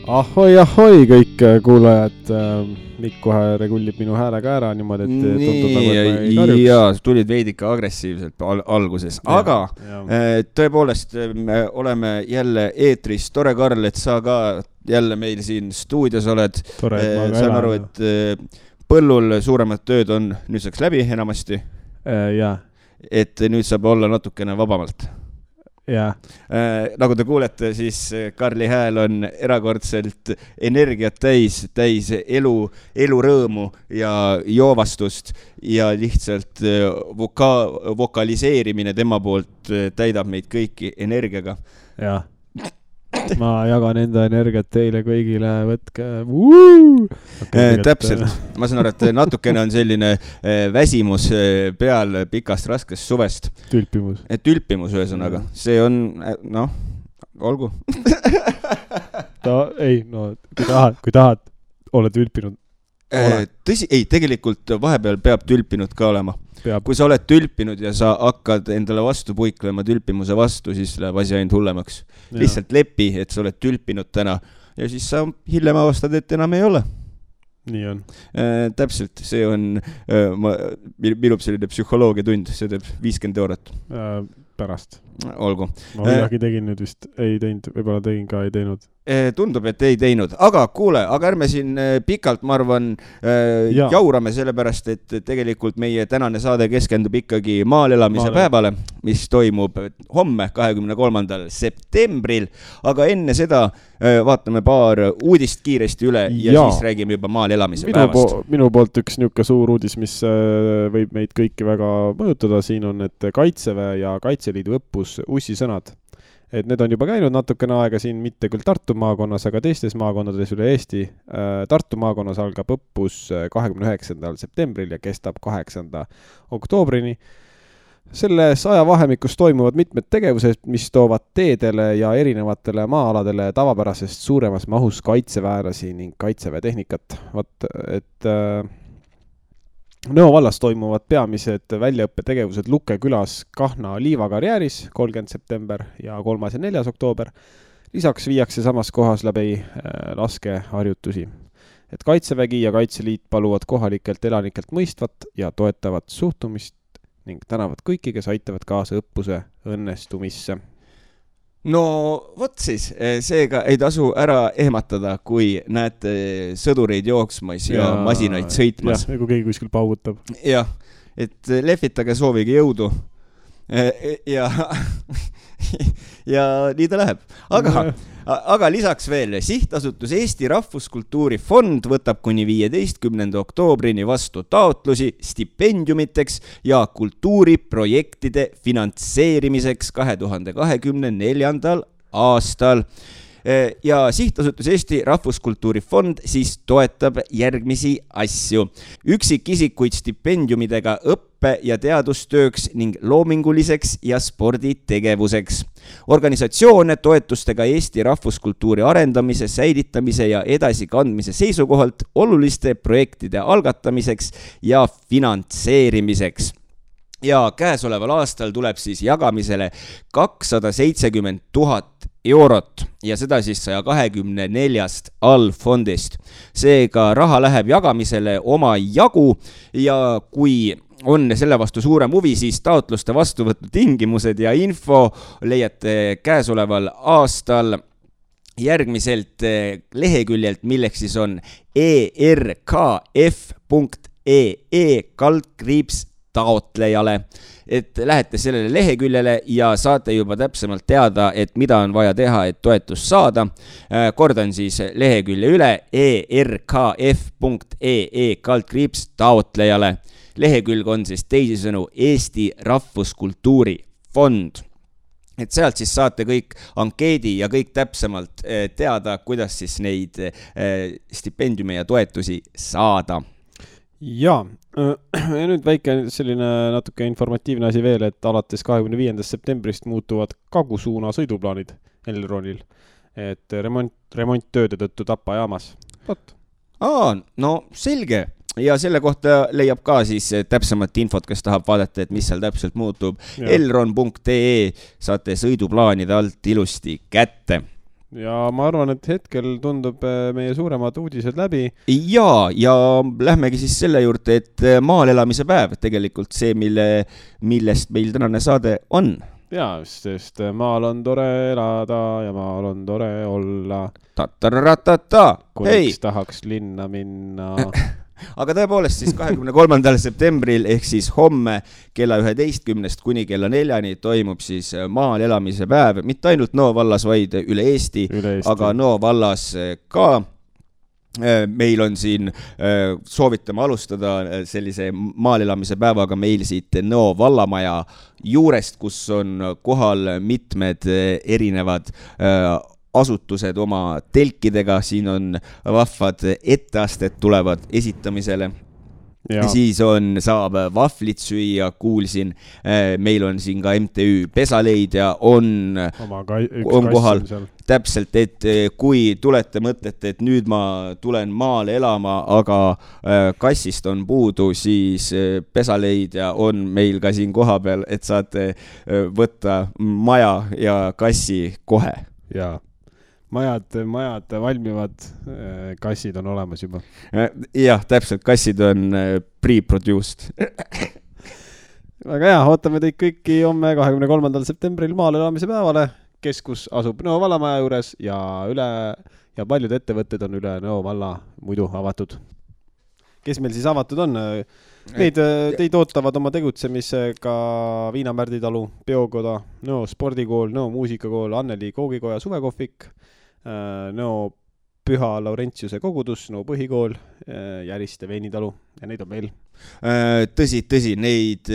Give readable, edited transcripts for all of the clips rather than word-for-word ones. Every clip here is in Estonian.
Ahoi kõik kuulajad, Mikk kohe regullib minu häälega ära niimoodi, et tundub nagu, et ma ei karjuks. Jaa, tulid veidike agressiivselt alguses, aga tõepoolest oleme jälle eetris. Tore, Karl, et sa ka jälle meil siin stuudios oled. Tore, et ma ka saan aru, et põllul suuremad tööd on nüüdseks läbi enamasti. Jaa. Et nüüd saab olla natukene vabamalt. Jaa. Nagu te kuulete, siis Karli hääl on erakordselt energiat täis elurõõmu ja joovastust ja lihtsalt vokaliseerimine tema poolt täidab meid kõiki energiaga. Jaa. Ma jagan enda energiat teile kõigile, võtke. Täpselt. Ma saan aru, et natukene on selline väsimus peal pikast raskest suvest. Tülpimus ühesõnaga. See on, olgu. Kui tahad, ole tülpinud. Tõsi, ei, tegelikult vahepeal peab tülpinud ka olema. Kui sa oled tülpinud ja sa hakkad endale vastu puiklema tülpimuse vastu, siis läheb asi ainult hullemaks. Lihtsalt lepi, et sa oled tülpinud täna ja siis sa hiljem avastad, et enam ei ole. Nii on. Täpselt, see on minu selline psühholoogia tund, see teeb 50 €. Pärast. Olgu. Ma midagi tegin nüüd vist, ei teinud, võib-olla tegin ka, ei teinud. Tundub, et ei teinud, aga kuule, aga ärme siin pikalt, ma arvan, jaurame sellepärast, et tegelikult meie tänane saade keskendub ikkagi maal elamise päevale, mis toimub homme 23. septembril, aga enne seda vaatame paar uudist kiiresti üle ja siis räägime juba maal elamise päevast. Minu poolt üks niuke suur uudis, mis võib meid kõiki väga mõjutada, siin on, et Kaitseväe ja Kaitseliidu õppus Ussisõnad. Et need on juba käinud natukene aega siin, mitte küll Tartu maakonnas, aga teistes maakonnades üle Eesti. Tartu maakonnas algab õppus 29. septembril ja kestab 8. oktoobrini. Selles ajavahemikus toimuvad mitmed tegevused, mis toovad teedele ja erinevatele maa-aladele tavapärasest suuremas mahus kaitseväelasi ning kaitseväetehnikat. Et Nõo vallas toimuvad peamised väljaõppetegevused Lukke külas Kahna liivakarjääris 30. september ja 3. ja 4. oktoober. Lisaks viiakse samas kohas läbi laskeharjutusi. Et Kaitsevägi ja Kaitseliit paluvad kohalikelt elanikelt mõistvat ja toetavat suhtumist ning tänavad kõiki, kes aitavad kaasa õppuse õnnestumisse. No vot siis, seega ei tasu ära ehmatada, kui näete sõdureid jooksmas ja masinaid sõitmas. Jah, kui keegi kuskil paugutab. Jah, et lehvitage soovige jõudu ja nii ta läheb. Aga lisaks veel, sihtasutus Eesti Rahvuskultuuri Fond võtab kuni 15. oktoobrini vastu taotlusi stipendiumiteks ja kultuuriprojektide finantseerimiseks 2024. aastal. Ja sihtasutus Eesti Rahvuskultuuri Fond siis toetab järgmisi asju. Üksikisikuid stipendiumidega õppe- ja teadustööks ning loominguliseks ja sporditegevuseks. Organisatsioone toetustega Eesti rahvuskultuuri arendamise, säilitamise ja edasikandmise seisukohalt oluliste projektide algatamiseks ja finantseerimiseks. Ja käesoleval aastal tuleb siis jagamisele 270 000 € ja seda siis 124 allfondist. Seega raha läheb jagamisele oma jagu ja kui on selle vastu suurem huvi, siis taotluste vastuvõtu tingimused ja info leiate käesoleval aastal järgmiselt leheküljelt, milleks siis on erkf.ee/taotlejale. Et lähete sellele leheküljele ja saate juba täpsemalt teada, et mida on vaja teha, et toetust saada. Kordan siis lehekülje üle erkf.ee/taotlejale. Lehekülg on siis teisisõnu Eesti Rahvuskultuuri Fond. Et sealt siis saate kõik ankeedi ja kõik täpsemalt teada, kuidas siis neid stipendiume ja toetusi saada. Ja nüüd väike selline natuke informatiivne asi veel, et alates 25. septembrist muutuvad kagusuuna sõiduplaanid Elronil, et remonttööde tõttu Tapa jaamas. No selge. Ja selle kohta leiab ka siis täpsemat infot, kes tahab vaadata, et mis seal täpselt muutub. Elron.ee saate sõiduplaanide alt ilusti kätte. ja ma arvan, et hetkel tundub meie suuremad uudised läbi. Ja lähmegi siis selle juurde, et maal elamise päev tegelikult see, millest meil tänane saade on. Jaa, sest maal on tore elada ja maal on tore olla. Kuniks tahaks linna minna. Aga tõepoolest siis 23. septembril ehk siis homme kella 11 kuni kella 4 toimub siis maal elamise päev, mitte ainult Nõo vallas, vaid üle Eesti. Aga Nõo vallas ka. Meil on siin, soovitame alustada sellise maal elamise päevaga meil siit Nõo vallamaja juurest, kus on kohal mitmed erinevad asutused oma telkidega, siin on vahvad etteasted tulevad esitamisele. Ja. Siis saab vahvlit süüa, kuulsin, meil on siin ka MTÜ Pesaleidja on kohal. Täpselt, et kui tulete mõtlete, et nüüd ma tulen maale elama, aga kassist on puudu, siis Pesaleidja on meil ka siin koha peal, et saate võtta maja ja kassi kohe. Jaa. Majad valmivad, kassid on olemas juba. Jah, täpselt, kassid on pre-produced. Väga hea, ootame teid kõiki homme 23. septembril maal elamise päevale. Keskus asub Nõo vallamaja juures ja paljud ettevõtted on üle Nõo valla muidu avatud. Kes meil siis avatud on? Teid ootavad oma tegutsemisega Viinamärdi talu, Peokoda, Nõo spordikool, Nõo muusikakool, Anneli koogikoja suvekohvik, Nõo Püha Laurentiuse kogudus, Nõo põhikool, Järiste veinitalu ja neid on meil. Tõsi, neid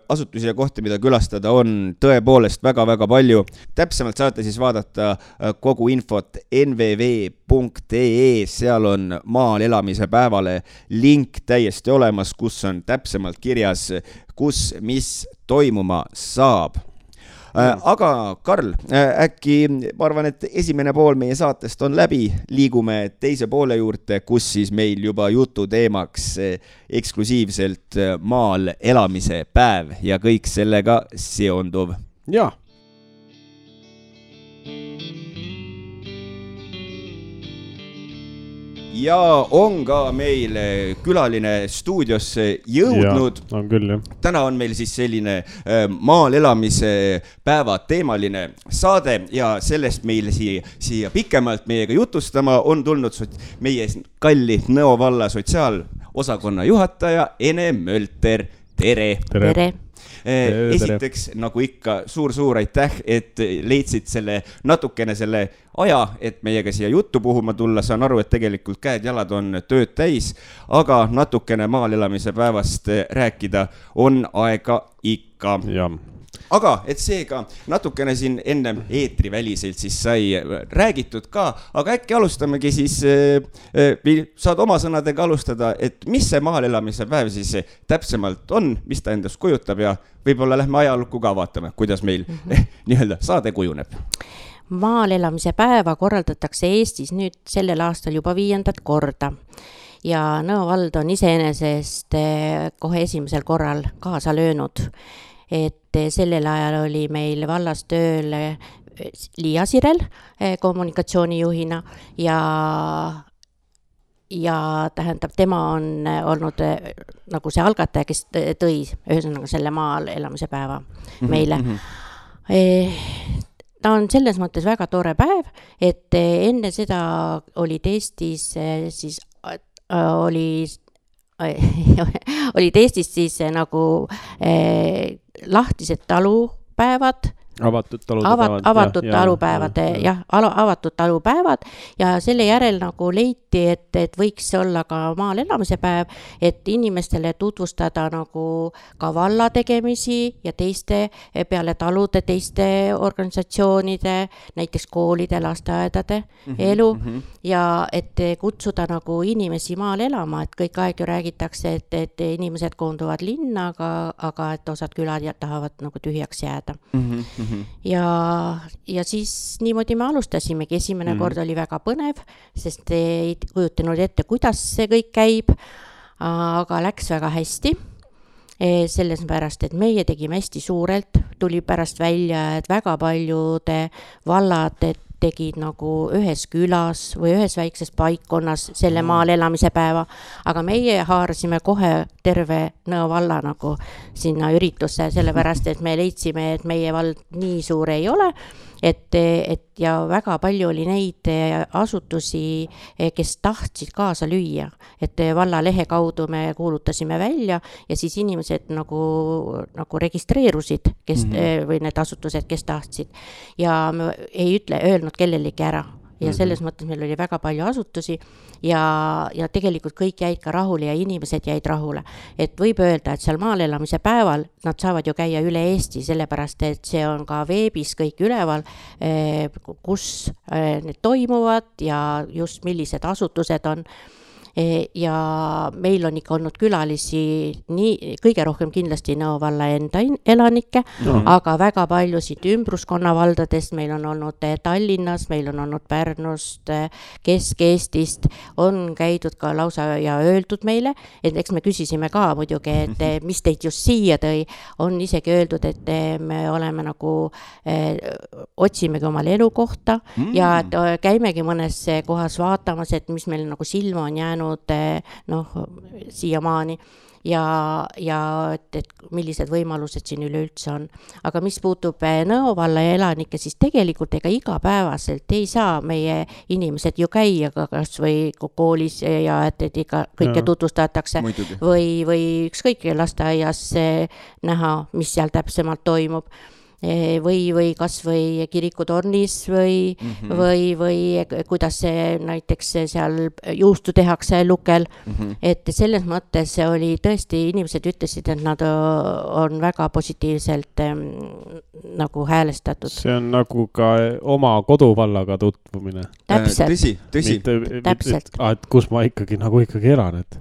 asutusi ja kohti, mida külastada on tõepoolest väga-väga palju. Täpsemalt saate siis vaadata kogu infot nvv.ee, seal on maal elamise päevale link täiesti olemas, kus on täpsemalt kirjas, kus mis toimuma saab. Aga Karl, äkki ma arvan, et esimene pool meie saatest on läbi, liigume teise poole juurde, kus siis meil juba jutu teemaks eksklusiivselt maal elamise päev ja kõik sellega seonduv. Jaa. Ja on ka meil külaline stuudiosse jõudnud. Ja, on küll, jah. Täna on meil siis selline maal elamise päeva teemaline saade ja sellest meil siia pikemalt meiega jutustama on tulnud meie kalli Nõo valla sotsiaalosakonna juhataja Ene Mölter. Tere! Tere! Esiteks, nagu ikka, suur aitäh, et leidsid natukene selle aja, et meiega siia juttu puhuma tulla. Saan aru, et tegelikult käed-jalad on tööd täis, aga natukene maal elamise päevast rääkida on aega ikka. Jah. Aga et seega natukene siin enne eetriväliselt siis sai räägitud ka, aga äkki alustamegi siis, saad oma sõnadega alustada, et mis see maal elamise päev siis täpsemalt on, mis ta endast kujutab ja võib-olla lähme ajalukku ka vaatame, kuidas meil nii-öelda saade kujuneb. Maal elamise päeva korraldatakse Eestis nüüd sellel aastal juba 5. korda. Ja Nõo vald on iseenesest kohe esimesel korral kaasa löönud. Et sellel ajal oli meil vallas tööl Liia Sirel kommunikatsioonijuhina ja tähendab, tema on olnud nagu see algataja, kes tõi ühesõnaga selle maal elamise päeva meile. Ta on selles mõttes väga tore päev, et enne seda olid Eestis siis olid Eestis siis nagu lahtised talupäevad, avatud talupäevad, avatud talupäevad ja selle järel nagu leiti, et võiks olla ka maal elamise päev, et inimestele tutvustada nagu ka valla tegemisi ja teiste peale talude, teiste organisatsioonide, näiteks koolide, lasteaedade elu ja et kutsuda nagu inimesi maal elama, et kõik aeg ju räägitakse, et inimesed koonduvad linna, aga et osad külad tahavad nagu tühjaks jääda. Ja siis niimoodi me alustasimegi. Esimene kord oli väga põnev, sest ei kujutanud ette, kuidas see kõik käib, aga läks väga hästi. Selles pärast, et meie tegime hästi suurelt, tuli pärast välja, et väga paljude vallad tegid nagu ühes külas või ühes väikses paikkonnas selle maal elamise päeva, aga meie haarasime kohe terve Nõo valla nagu sinna üritusse, sellepärast et me leidsime, et meie vald nii suur ei ole, et ja väga palju oli neid asutusi, kes tahtsid kaasa lüüa, et valla lehe kaudu me kuulutasime välja ja siis inimesed nagu registreerusid, kes või need asutused, kes tahtsid ja me ei öelnud kellelegi ära. Ja selles mõttes meil oli väga palju asutusi ja tegelikult kõik jäid ka rahule ja inimesed jäid rahule. Et võib öelda, et seal maal elamise päeval nad saavad ju käia üle Eesti, sellepärast et see on ka veebis kõik üleval, kus need toimuvad ja just millised asutused on. Ja meil on ikka olnud külalisi kõige rohkem kindlasti Nõo valla enda elanikke, aga väga paljusid ümbruskonna valdadest, meil on olnud Tallinnas, meil on olnud Pärnust, Kesk-Eestist, on käidud ka lausa ja öeldud meile, et eks me küsisime ka muidugi, et mis teid just siia tõi, on isegi öeldud, et me oleme nagu, otsimegi omale elukohta ja et käimegi mõnes kohas vaatamas, et mis meil nagu silma on jäänud siiamaani ja et millised võimalused siin üleüldse on. Aga mis puutub Nõo valla elanikke, siis tegelikult ega igapäevaselt ei saa meie inimesed ju käia kas või koolis ja et ikka kõike tutvustatakse või ükskõik lasteaias näha, mis seal täpsemalt toimub. Või kas või kirikutornis või kuidas see näiteks seal juustu tehakse lukel, et selles mõttes oli tõesti, inimesed ütlesid, et nad on väga positiivselt nagu häälestatud. See on nagu ka oma koduvallaga tutvumine. Täpselt. Tõsi. Täpselt. Et kus ma ikkagi elan, et.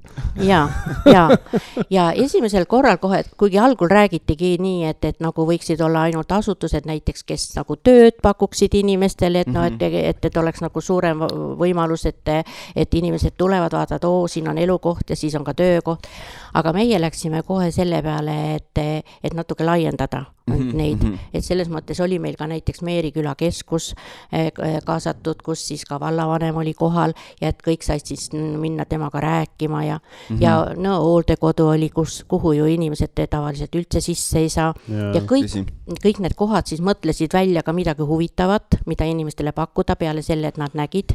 Ja esimesel korral kohe, kuigi algul räägitigi nii, et nagu võiksid olla ainult asutused näiteks, kes nagu tööd pakuksid inimestele, et oleks nagu suurem võimalus, et inimesed tulevad, vaatavad, siin on elukoht ja siis on ka töökoht. Aga meie läksime kohe selle peale, et natuke laiendada neid, et selles mõttes oli meil ka näiteks Meeriküla keskus kaasatud, kus siis ka vallavanem oli kohal ja et kõik said siis minna temaga rääkima ja Nõo hooldekodu oli, kuhu ju inimesed tavaliselt üldse sisse ei saa ja kõik need kohad siis mõtlesid välja ka midagi huvitavat, mida inimestele pakkuda peale selle, et nad nägid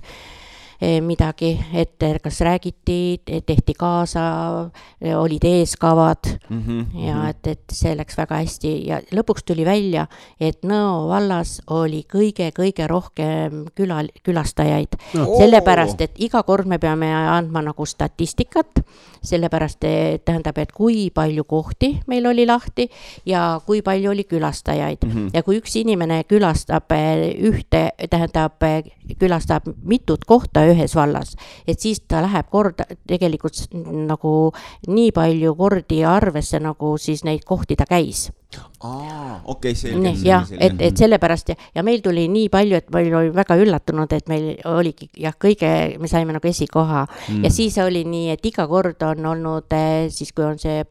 midagi, et kas räägiti, tehti kaasa, olid eeskavad ja et see läks väga hästi ja lõpuks tuli välja, et Nõo vallas oli kõige rohkem külastajaid, sellepärast, et iga kord me peame andma nagu statistikat, sellepärast tähendab, et kui palju kohti meil oli lahti ja kui palju oli külastajaid ja kui üks inimene külastab külastab mitut kohta ühes vallas, et siis ta läheb korda tegelikult nagu nii palju kordi arvesse, nagu siis neid kohti ta käis. Selge. Et sellepärast ja meil tuli nii palju, et meil oli väga üllatunud, et meil oligi me saime nagu esikoha ja siis oli nii, et iga kord on olnud siis, kui on see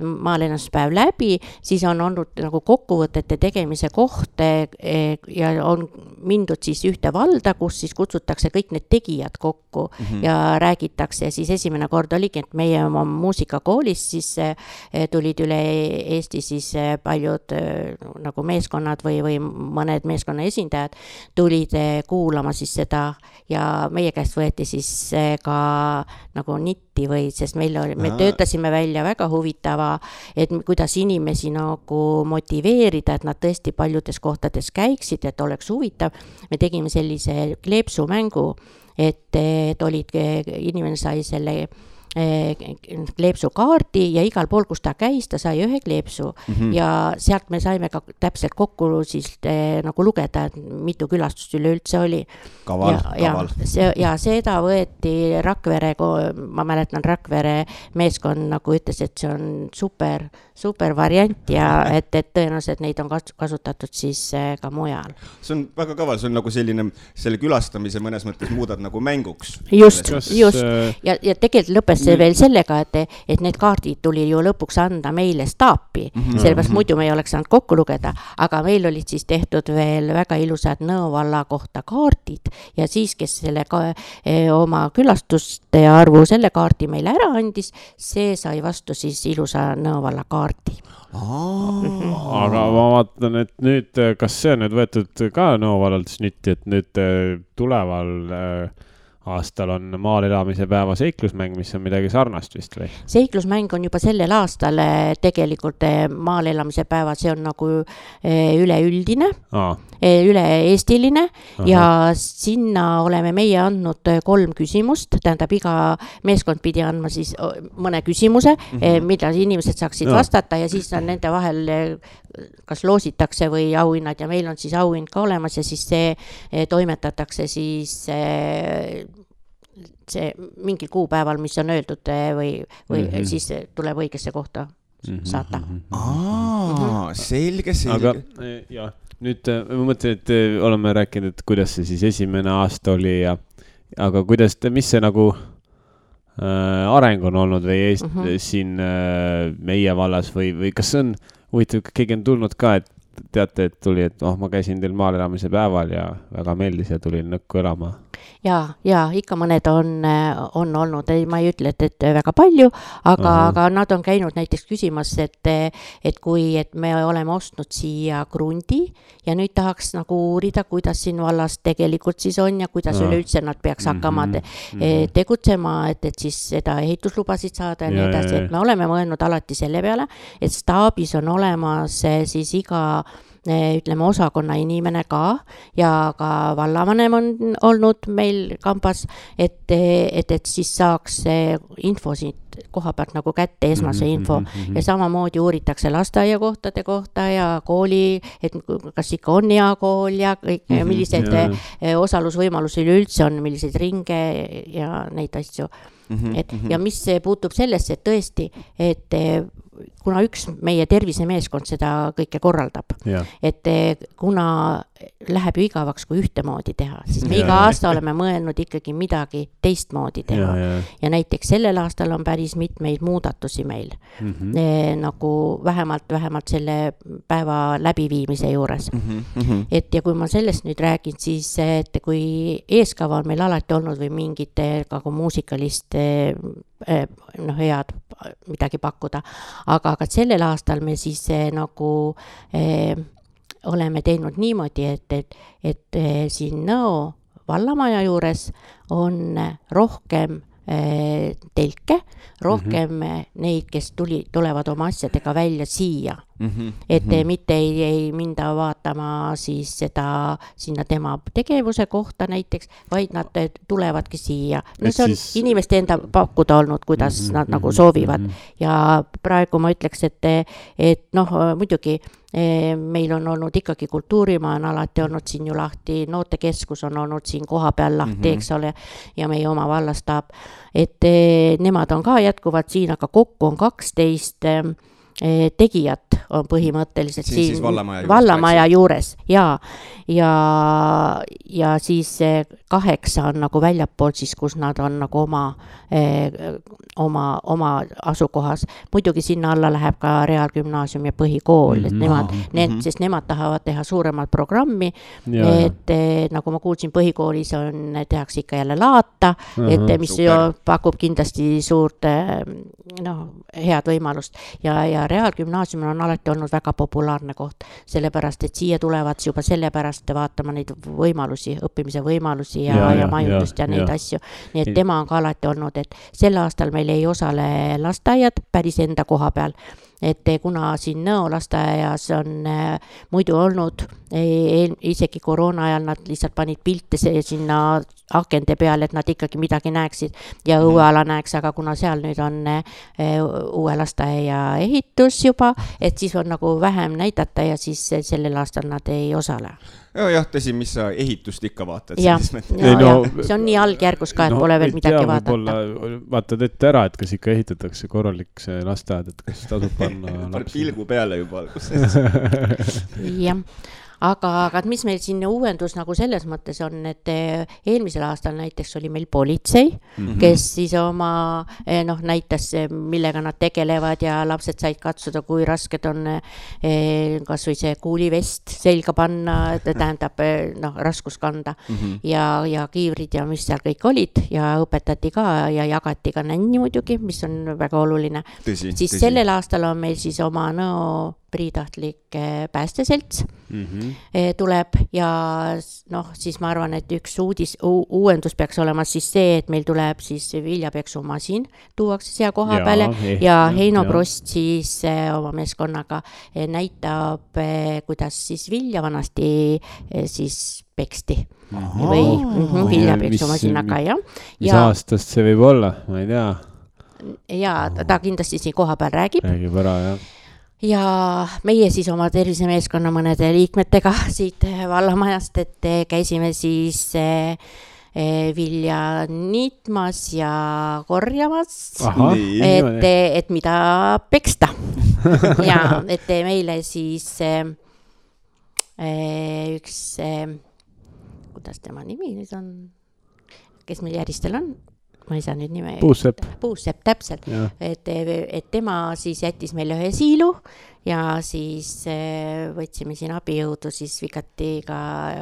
maalennuspäev läbi, siis on olnud nagu kokkuvõtete tegemise koht ja on mindud siis ühte valda, kus siis kutsutakse kõik need tegijad kokku ja räägitakse ja siis esimene kord oligi, et meie oma muusikakoolis siis tulid üle Eesti siis paljud nagu meeskonnad või mõned meeskonna esindajad tulid kuulama siis seda ja meie käest võeti siis ka nagu nitti sest me töötasime välja väga huvitava, et kuidas inimesi nagu motiveerida, et nad tõesti paljudes kohtades käiksid, et oleks huvitav. Me tegime sellise kleepsumängu, et inimene sai selle kleepsukaardi ja igal pool, kus ta käis, ta sai ühe kleepsu ja sealt me saime ka täpselt kokku siis nagu lugeda, et mitu külastust üleüldse oli. Kaval. Ja seda võeti Rakvere, ma mäletan Rakvere meeskond nagu ütles, et see on super variant ja et tõenäoliselt neid on kasutatud siis ka mujal. See on väga kaval, see on nagu selle külastamise mõnes mõttes muudad nagu mänguks. Just. Ja tegelikult lõppes veel sellega, et need kaardid tuli ju lõpuks anda meile staapi, sellepärast muidu me ei oleks saanud kokku lugeda, aga meil olid siis tehtud veel väga ilusad Nõo valla kohta kaardid ja siis, kes selle oma külastuste arvu selle kaardi meile ära andis, see sai vastu siis ilusa Nõo valla kaardi. Aga ma vaatan, et nüüd, kas see on nüüd võetud ka Nõo vallalt snitti, et nüüd tuleval aastal on maal elamise päeva seiklusmäng, mis on midagi sarnast vist või? Seiklusmäng on juba sellel aastal tegelikult maal elamise päeva, see on nagu üleüldine, üle-eestiline ja sinna oleme meie andnud 3 küsimust, tähendab iga meeskond pidi andma siis mõne küsimuse, mida inimesed saaksid vastata ja siis on nende vahel kas loositakse või auhinnad ja meil on siis auhind ka olemas ja siis see toimetatakse siis see mingil kuupäeval, mis on öeldud või siis tuleb õigesse kohta saata. Selge. Aga jah, nüüd ma mõtlen, et oleme rääkinud, et kuidas see siis esimene aasta oli aga kuidas, mis see nagu areng on olnud või siin meie vallas või kas see on huvitav, keegi on tulnud ka, et teate, et tuli, et ma käisin teil maal elamise päeval ja väga meeldis ja tulin Nõkku elama. Ja ikka mõned on olnud, ma ei ütle, et väga palju, aga nad on käinud näiteks küsimas, et kui me oleme ostnud siia krundi ja nüüd tahaks nagu uurida, kuidas siin vallas tegelikult siis on ja kuidas üleüldse nad peaks hakkama tegutsema, et siis seda ehituslubasid saada ja nii edasi, et me oleme mõelnud alati selle peale, et staabis on olemas siis iga ütleme osakonna inimene ka ja ka vallavanem on olnud meil kambas, et siis saaks info siit koha pealt nagu kätte, esmase info ja samamoodi uuritakse lasteaiakohtade kohta ja kooli, et kas ikka on hea kool ja kõik, millised osalusvõimalusi üleüldse on, milliseid ringe ja neid asju. Ja mis puutub sellesse, et tõesti, et kuna üks meie tervisemeeskond seda kõike korraldab, et kuna läheb ju igavaks, kui ühtemoodi teha, siis me iga aasta oleme mõelnud ikkagi midagi teistmoodi teha ja näiteks sellel aastal on päris mitmeid muudatusi meil nagu vähemalt selle päeva läbiviimise juures. Et ja kui ma sellest nüüd räägin, siis et kui eeskava on meil alati olnud või mingite nagu muusikalist head midagi pakkuda, aga sellel aastal me siis nagu oleme teinud niimoodi, et siin Nõo vallamaja juures on rohkem telke, rohkem neid, kes tulevad oma asjadega välja siia. Et mitte ei minda vaatama siis seda sinna tema tegevuse kohta näiteks, vaid nad tulevadki siia. No see on inimeste enda pakkuda olnud, kuidas nad nagu soovivad. Ja praegu ma ütleks, et muidugi meil on olnud ikkagi kultuurimaa on alati olnud siin ju lahti, noortekeskus on olnud siin koha peal lahti, eks ole, ja meie oma vallastaab, et nemad on ka jätkuvad siin, aga kokku on 12 tegijat on põhimõtteliselt siin vallamaja juures ja siis 8 on nagu väljapool siis, kus nad on nagu oma asukohas. Muidugi sinna alla läheb ka reaalgümnaasium ja põhikool, et sest nemad tahavad teha suuremat programmi, et nagu ma kuulsin, põhikoolis tehakse ikka jälle laata, et mis pakub kindlasti suurt head võimalust ja reaalgümnaasiumil on alati olnud väga populaarne koht, sellepärast, et siia tulevad juba sellepärast vaatama neid võimalusi, õppimise võimalusi ja majutust ja neid asju. Nii et tema on ka alati olnud, et sel aastal meil ei osale lasteaiad päris enda koha peal, et kuna siin Nõo lasteaias on muidu olnud, isegi koroona ajal nad lihtsalt panid pilte sinna akende peale, et nad ikkagi midagi näeksid ja õueala näeks, aga kuna seal nüüd on uue lasteaia ehitus juba, et siis on nagu vähem näidata ja siis sellel aastal nad ei osale. Jah, tõsi, mis sa ehitust ikka vaatad? Ja, see on nii algjärgus ka, et pole veel midagi vaadata. Vaatad ette ära, et kas ikka ehitatakse korralik see lasteaed, et kas tasub panna pilgu peale juba. Jah. aga mis meil siin uuendus nagu selles mõttes on, et eelmisel aastal näiteks oli meil politsei, kes siis oma näitas, millega nad tegelevad ja lapsed said katsuda, kui rasked on kas või see kuulivest selga panna, tähendab raskus kanda ja kiivrid ja mis seal kõik olid ja õpetati ka ja jagati ka nänni muidugi, mis on väga oluline. Siis sellel aastal on meil siis oma priitahtlik päästeselts tuleb ja siis ma arvan, et üks uuendus peaks olema siis see, et meil tuleb siis viljapeksumasin, tuuakse siia koha peale ja Heino Prost siis oma meeskonnaga näitab, kuidas siis vilja vanasti siis peksti või viljapeksumasinaga, jah. Mis aastast see võib olla, ma ei tea. Ja ta kindlasti siin koha peal räägib ära, jah. Ja meie siis oma tervisemeeskonna mõnede liikmetega siit vallamajast, et käisime siis vilja niitmas ja korjamas, et mida peksta. Ja et meile siis üks, kuidas tema nimi nüüd on, kes meil järjestel on? Ma ei saa nüüd nime. Puusepp, täpselt. Et tema siis jättis meile ühe siilu ja siis võtsime siin abijõudu siis vikati ka,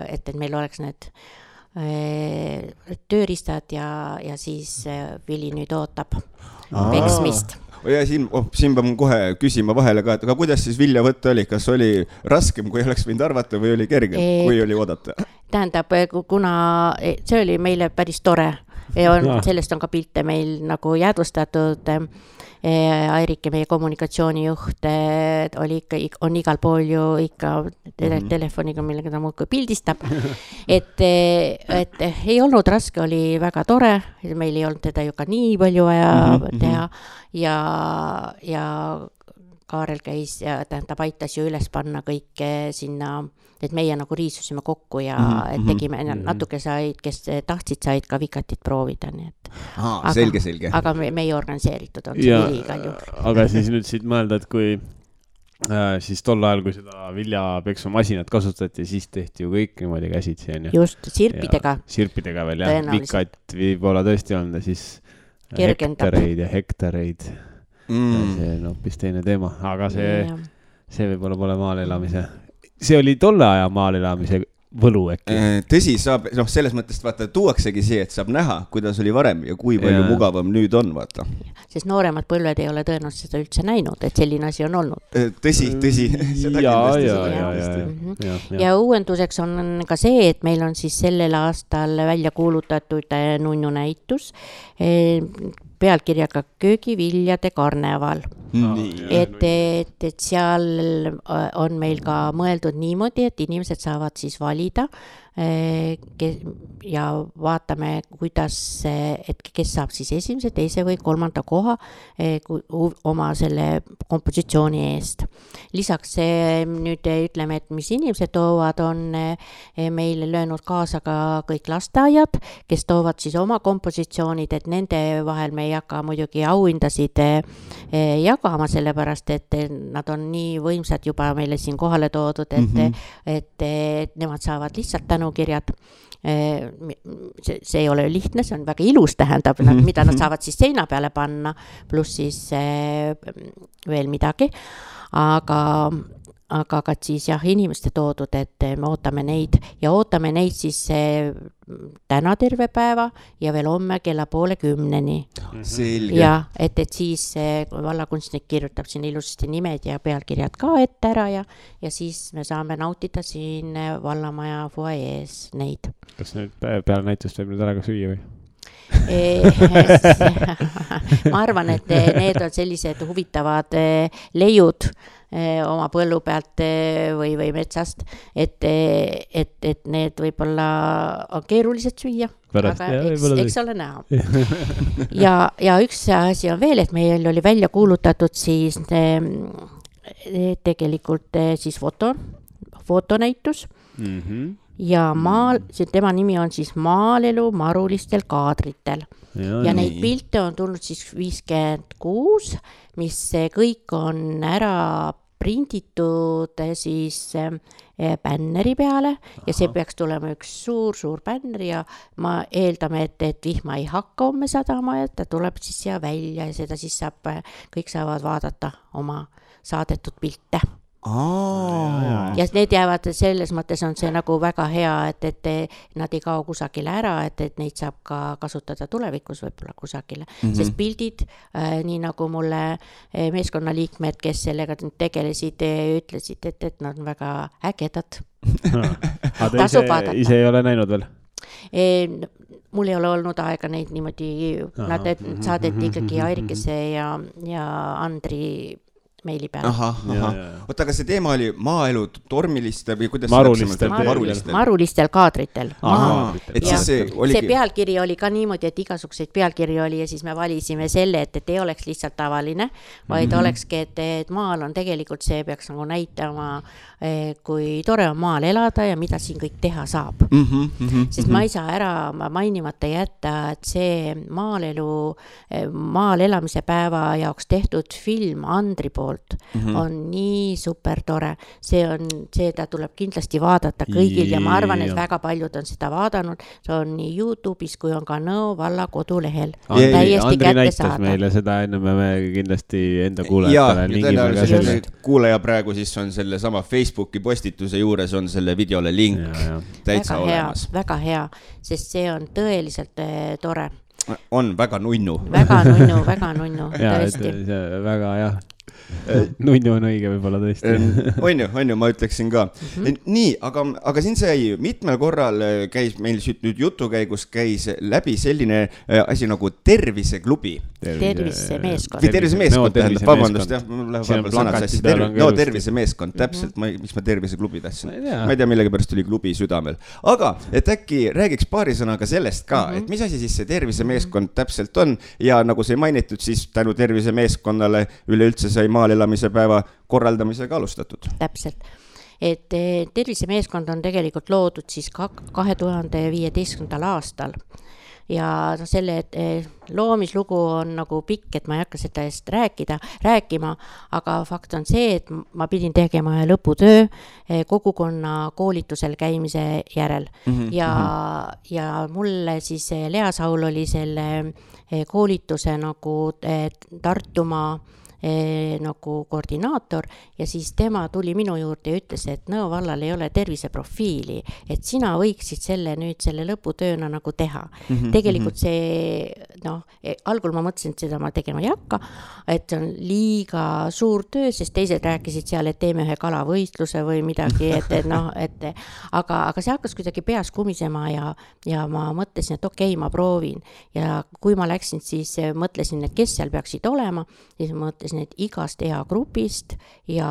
et meil oleks need tööriistad ja siis Vili nüüd ootab peksmist. Ja siin pean kohe küsima vahele ka, et aga kuidas siis vilja võtta oli? Kas oli raskem, kui oleks võinud arvata või oli kergem, kui oli oodata? Tähendab, kuna see oli meile päris tore, sellest on ka pilte meil nagu jäädvustatud. Airike, meie kommunikatsioonijuht, on igal pool ju ikka telefoniga, millega ta muudkui pildistab. Et ei olnud raske, oli väga tore, meil ei olnud teda ju ka nii palju vaja teha ja Kaarel käis ja tähendab, aitas ju üles panna kõike sinna, et meie nagu riisusime kokku ja et tegime natuke said, kes tahtsid, said ka vikatit proovida. Nii et. Selge. Aga me ei organiseeritud, on see Vili igal juhul. Aga siis nüüd siit mõelda, et kui siis tol ajal, kui seda viljapeksumasinat kasutati, siis tehti ju kõik niimoodi käsitsi. Just, sirpidega. Sirpidega veel, jah. Vikat võib-olla tõesti olnud ja siis hektareid. See on hoopis teine teema, aga see võib-olla pole maal elamise. See oli tolle aja maal elamise võlu äkki. Tõsi, saab, selles mõttes vaata, tuuaksegi see, et saab näha, kuidas oli varem ja kui palju mugavam nüüd on, vaata. Sest nooremad põlved ei ole tõenäoliselt seda üldse näinud, et selline asi on olnud. Tõsi. Ja uuenduseks on ka see, et meil on siis sellel aastal välja kuulutatud nunnu näitus pealkirjaga köögiviljade karneval. Et seal on meil ka mõeldud niimoodi, et inimesed saavad siis valida ja vaatame, kuidas, et kes saab siis esimese, teise või kolmanda koha oma selle kompositsiooni eest. Lisaks nüüd ütleme, et mis inimesed toovad, on meile löönud kaasa ka kõik lasteaiad, kes toovad siis oma kompositsioonid, et nende vahel me ei hakka muidugi auhindasid jagama, sellepärast, et nad on nii võimsad juba meile siin kohale toodud, et nemad saavad lihtsalt tänukirjad. See ei ole lihtne, see on väga ilus, tähendab, mida nad saavad siis seina peale panna, pluss siis veel midagi, aga ka siis inimeste toodud, et me ootame neid siis täna terve päeva ja veel homme kella 9:30. Selge. Ja et siis vallakunstnik kirjutab siin ilusasti nimed ja pealkirjad ka ette ära ja siis me saame nautida siin vallamaja fuajees neid. Kas nüüd peale näitust võib nüüd ära ka süüa või? Ma arvan, et need on sellised huvitavad leiud oma põllu pealt või metsast, et need võib-olla on keerulised süüa, aga eks ole näha. Ja üks asi on veel, et meil oli välja kuulutatud siis tegelikult siis fotonäitus ja tema nimi on siis Maalelu marulistel kaadritel. Ja neid pilte on tulnud siis 56, mis kõik on ära prinditud siis bänneri peale ja see peaks tulema üks suur bänner ja ma eeldame, et vihma ei hakka homme sadama, et ta tuleb siis siia välja ja seda siis kõik saavad vaadata oma saadetud pilte. Ja need jäävad, selles mõttes on see nagu väga hea, et nad ei kao kusagile ära, et neid saab ka kasutada tulevikus võib-olla kusagile, sest pildid, nii nagu mulle meeskonnaliikmed, kes sellega tegelesid, ütlesid, et nad on väga ägedad. Tasub vaadata. Ise ei ole näinud veel? Mul ei ole olnud aega neid niimoodi, nad saadeti ikkagi Airikese ja Andri meili peale. Oota, aga see teema oli maaelu tormilistel või kuidas marulistel kaadritel. See pealkiri oli ka niimoodi, et igasuguseid pealkiri oli ja siis me valisime selle, et ei oleks lihtsalt tavaline, vaid olekski, et maal on tegelikult see peaks nagu näitama, kui tore on maal elada ja mida siin kõik teha saab. Sest ma ei saa ära mainimata jätta, et see maal elamise päeva jaoks tehtud film Andri poolt on nii super tore. Ta tuleb kindlasti vaadata kõigil ja ma arvan, et väga paljud on seda vaadanud. See on nii YouTube'is kui on ka Nõo valla kodulehel. Andri näitas meile seda enne me kindlasti enda kuulajatele. Kuulaja praegu siis on selle sama Facebooki postituse juures on selle videole link täitsa olemas. Väga hea, sest see on tõeliselt tore. On väga nunnu. Väga nunnu, tõesti. Väga jah. Nunnu on õige võib-olla tõesti. On ju, ma ütleksin ka. Nii, aga siin sai mitmel korral käis meil nüüd jutu käigus käis läbi selline asi nagu terviseklubi. Tervisemeeskond, vabandust, tervisemeeskond, täpselt, miks ma terviseklubi tahtsin. Ma ei tea, millegi pärast oli klubi südamel. Aga, et äkki räägiks paari sõnaga sellest ka, et mis asi siis see tervisemeeskond täpselt on ja nagu see mainitud, siis tänu tervisemeeskonnale üleüldse sai maal elamise päeva korraldamisega alustatud. Täpselt. Et tervisemeeskond on tegelikult loodud siis 2015. aastal ja selle loomislugu on nagu pikk, et ma ei hakka seda eest rääkima, aga fakt on see, et ma pidin tegema lõputöö kogukonna koolitusel käimise järel ja mulle siis Lea Saul oli selle koolituse nagu Tartumaa nagu koordinaator ja siis tema tuli minu juurde ja ütles, et Nõo vallal ei ole terviseprofiili, et sina võiksid selle lõputööna nagu teha. Tegelikult see, algul ma mõtlesin, et seda ma tegema ei hakka, et see on liiga suur töö, sest teised rääkisid seal, et teeme ühe kalavõistluse või midagi, aga see hakkas kuidagi peas kumisema ja ma mõtlesin, et okei, ma proovin ja kui ma läksin, siis mõtlesin, et kes seal peaksid olema, siis mõtlesin, et igast eagrupist ja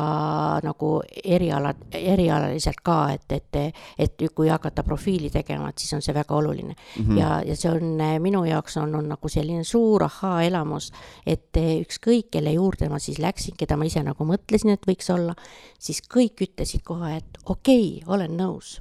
nagu erialaliselt ka, et kui hakata profiili tegema, et siis on see väga oluline. Ja see on minu jaoks on nagu selline suur elamus, et ükskõik, kelle juurde ma siis läksin, keda ma ise nagu mõtlesin, et võiks olla, siis kõik ütlesid kohe, et okei, olen nõus.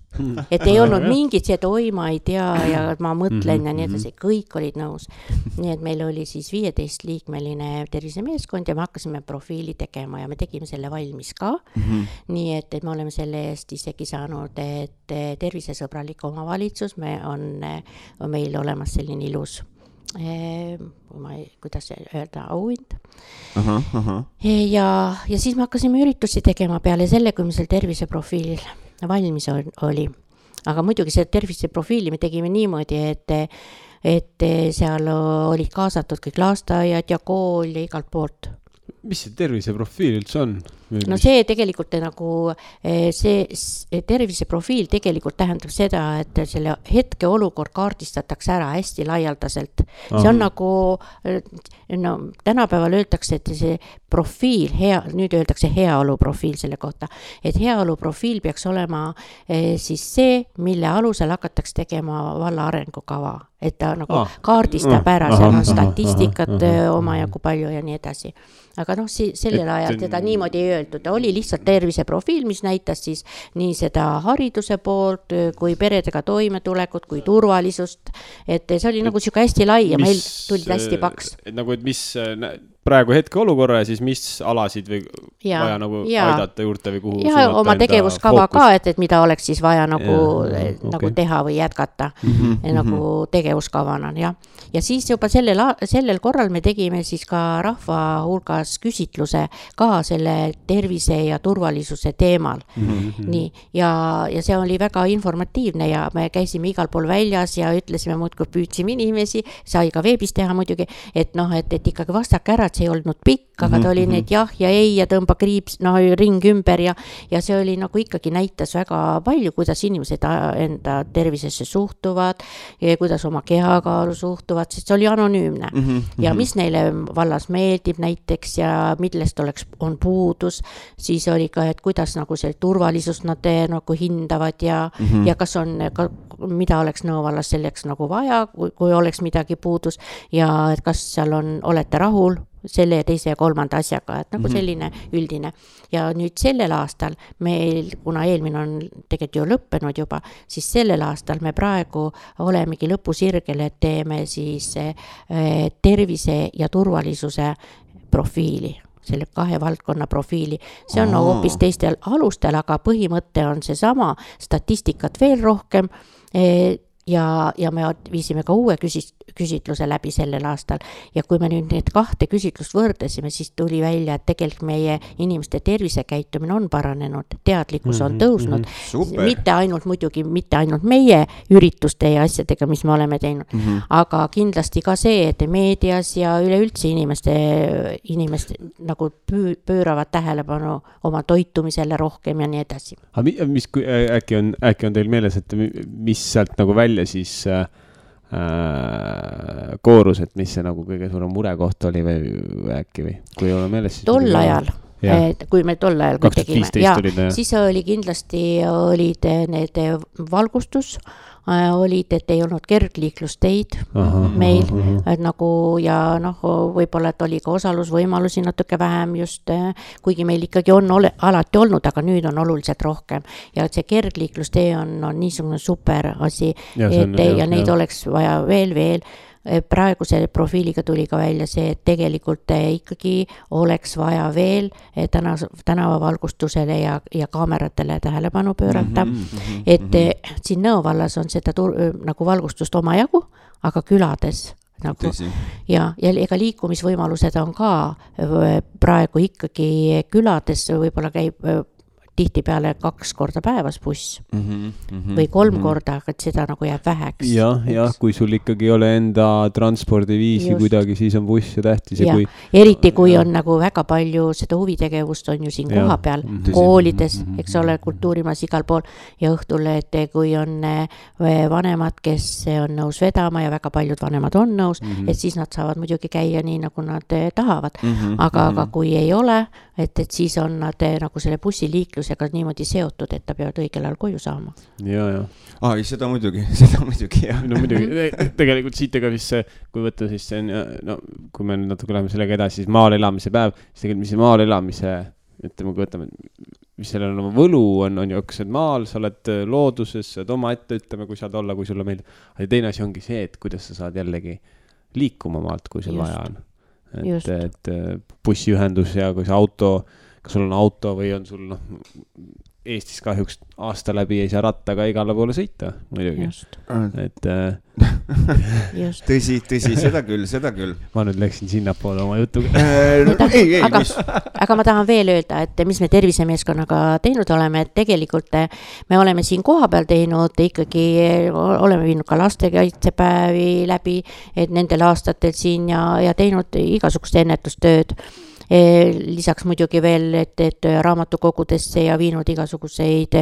Et ei olnud mingit see, et oi, ma ei tea ja ma mõtlen ja nii edasi, kõik olid nõus. Nii et meil oli siis 15-liikmeline tervisemeeskond ja me hakkasime profiili tegema ja me tegime selle valmis ka. Nii et me oleme selle eest isegi saanud, et tervisesõbralik omavalitsus on meil olemas selline ilus kuidas öelda, auhind. Ja siis me hakkasime üritusi tegema peale selle, kui me seal terviseprofiil valmis oli. Aga muidugi see terviseprofiili me tegime niimoodi, et seal olid kaasatud kõik lasteaiad ja kool ja igalt poolt. Mis see terviseprofiil üldse on? No see tegelikult nagu, see terviseprofiil tegelikult tähendab seda, et selle hetke olukord kaardistatakse ära hästi laialdaselt. See on nagu, tänapäeval öeldakse, et see profiil, nüüd öeldakse heaoluprofiil selle kohta, et heaoluprofiil peaks olema siis see, mille alusel hakatakse tegema valla arengukava, et ta nagu kaardistab ära, seal on statistikat omajagu palju ja nii edasi. Aga sellel ajal teda niimoodi ei öeldud, oli lihtsalt terviseprofiil, mis näitas siis nii seda hariduse poolt, kui peredega toimetulekut, kui turvalisust, et see oli nagu siuke hästi lai ja meil tuli hästi paks. Nagu, et mis praegu hetke olukorra ja siis mis alasid või vaja nagu aidata juurde või kuhu ja oma tegevuskava ka, et mida oleks siis vaja nagu teha või jätkata nagu tegevuskavana, jah. Ja siis juba sellel korral me tegime siis ka rahva hulgas küsitluse ka selle tervise ja turvalisuse teemal. Nii, ja see oli väga informatiivne ja me käisime igal pool väljas ja ütlesime muudkui püüdsime inimesi, sai ka veebis teha muidugi, et ikkagi vastake ära, et see ei olnud pikk, aga ta oli need jah ja ei ja tõmba kriips, ring ümber ja see oli nagu ikkagi näitas väga palju, kuidas inimesed enda tervisesse suhtuvad ja kuidas oma kehakaalu suhtuvad, sest see oli anonüümne. Ja mis neile vallas meeldib näiteks ja millest on puudus, siis oli ka, et kuidas nagu see turvalisust nad nagu hindavad ja kas on, mida oleks Nõo vallas selleks nagu vaja, kui oleks midagi puudus ja et kas seal olete rahul selle ja teise ja kolmanda asjaga, et nagu selline üldine. Ja nüüd sellel aastal meil, kuna eelmine on tegelikult ju lõppenud juba, siis sellel aastal me praegu olemegi lõpusirgel, et teeme siis tervise ja turvalisuse profiili, selle 2 valdkonna profiili. See on hoopis teistel alustel, aga põhimõte on see sama, statistikat veel rohkem ja me viisime ka uue küsitluse läbi sellel aastal ja kui me nüüd need 2 küsitlust võrdlesime, siis tuli välja, et tegelikult meie inimeste tervisekäitumine on paranenud, teadlikkus on tõusnud, mitte ainult meie ürituste ja asjadega, mis me oleme teinud, aga kindlasti ka see, et meedias ja üleüldse inimeste nagu pööravad tähelepanu oma toitumisele rohkem ja nii edasi. Äkki on teil meeles, et mis sealt nagu välja siis koorus, et mis see nagu kõige suurem murekoht oli või äkki või kui ei ole meeles siis tol ajal, kui me tol ajal tegime, siis oli kindlasti olid need valgustus, olid, et ei olnud kergliiklusteid meil nagu ja võib-olla, et oli ka osalusvõimalusi natuke vähem just, kuigi meil ikkagi on alati olnud, aga nüüd on oluliselt rohkem ja see kergliiklustee on niisugune super asi ja neid oleks vaja veel. Praeguse profiiliga tuli ka välja see, et tegelikult ikkagi oleks vaja veel tänavavalgustusele ja kaameratele tähelepanu pöörata, et siin Nõo vallas on seda nagu valgustust omajagu, aga külades nagu, ja ega liikumisvõimalused on ka praegu ikkagi külades, võib-olla käib tihtipeale 2 korda päevas buss või 3 korda, aga seda nagu jääb väheks. Ja kui sul ikkagi ei ole enda transpordiviisi kuidagi, siis on buss ja tähtis. Ja eriti kui on nagu väga palju seda huvitegevust on ju siin koha peal, koolides, eks ole, kultuurimas igal pool ja õhtul, et kui on vanemad, kes on nõus vedama ja väga paljud vanemad on nõus, et siis nad saavad muidugi käia nii, nagu nad tahavad. Aga kui ei ole, et siis on nad nagu selle bussiliiklusega niimoodi seotud, et ta peavad õigel ajal koju saama. Ja. Seda muidugi, jah. No muidugi, tegelikult siit ega siis see, kui võtta siis see, kui me natuke läheme sellega edasi, siis maal elamise päev, siis tegelikult mis see maal elamise, ütleme, kui võtame, mis sellel on oma võlu, on ju õksed maal, sa oled looduses, saad oma ette, ütleme, kui saad olla, kui sulle meeldib. Aga teine asi ongi see, et kuidas sa saad jällegi liikuma maalt, kui sul vaja on. Et bussiühendus ja kui see auto, kas sul on auto või on sul Eestis kahjuks aasta läbi ei saa rattaga igale poole sõita, muidugi. Et tõsi, seda küll. Ma nüüd läksin sinnapoole oma jutuga. Aga ma tahan veel öelda, et mis me tervisemeeskonnaga teinud oleme, et tegelikult me oleme siin koha peal teinud, ikkagi oleme viinud ka lastekaitsepäevi läbi, et nendel aastatel siin ja teinud igasugust ennetustööd. Lisaks muidugi veel, et raamatukogudesse ja viinud igasuguseid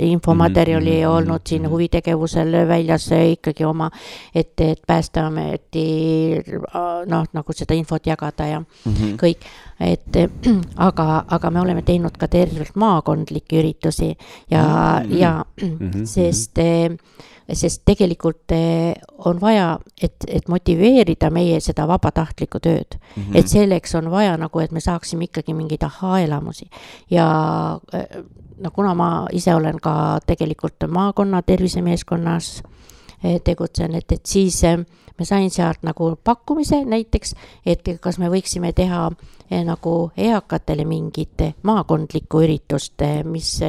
infomaterjali olnud siin huvitegevusel väljas ikkagi oma, et Päästeameti nagu seda infot jagada ja kõik. Aga me oleme teinud ka tervelt maakondlikke üritusi ja sest tegelikult on vaja, et motiveerida meie seda vabatahtlikku tööd. Et selleks on vaja nagu, et me saaksime ikkagi mingeid aha-elamusi. Ja kuna ma ise olen ka tegelikult maakonna tervisemeeskonnas tegutsen, et siis ma sain sealt nagu pakkumise näiteks, et kas me võiksime teha nagu eakatele mingit maakondlikku üritust, mis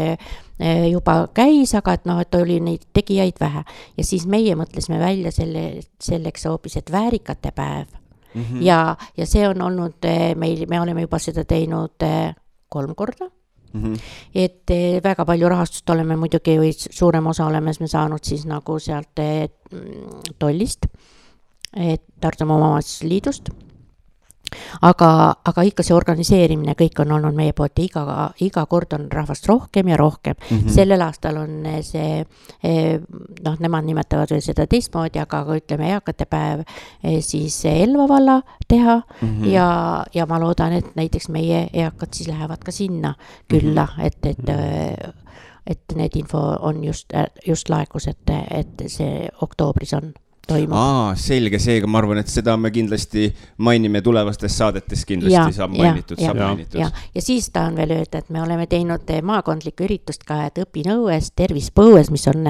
juba käis, aga et noh, et oli neid tegijaid vähe. Ja siis meie mõtlesime välja selleks hoopis, et väärikate päev. Ja see on olnud meil, me oleme juba seda teinud 3 korda. Et väga palju rahastust oleme muidugi või suurem osa oleme me saanud siis nagu sealt tollist, Tartumaa Omavalitsusliidust. Aga ikka see organiseerimine kõik on olnud meie poolt ja iga kord on rahvast rohkem ja rohkem. Sellel aastal on see, noh, nemad nimetavad veel seda teistmoodi, aga ütleme eakate päev siis Elva valla teha ja ma loodan, et näiteks meie eakad siis lähevad ka sinna külla, et need info on just laekus, et see oktoobris on. Selge, seega ma arvan, et seda me kindlasti mainime tulevastes saadetes kindlasti saab mainitud. Ja siis tahan veel öelda, et me oleme teinud maakondlikku üritust ka, et õpinõues, tervispõues, mis on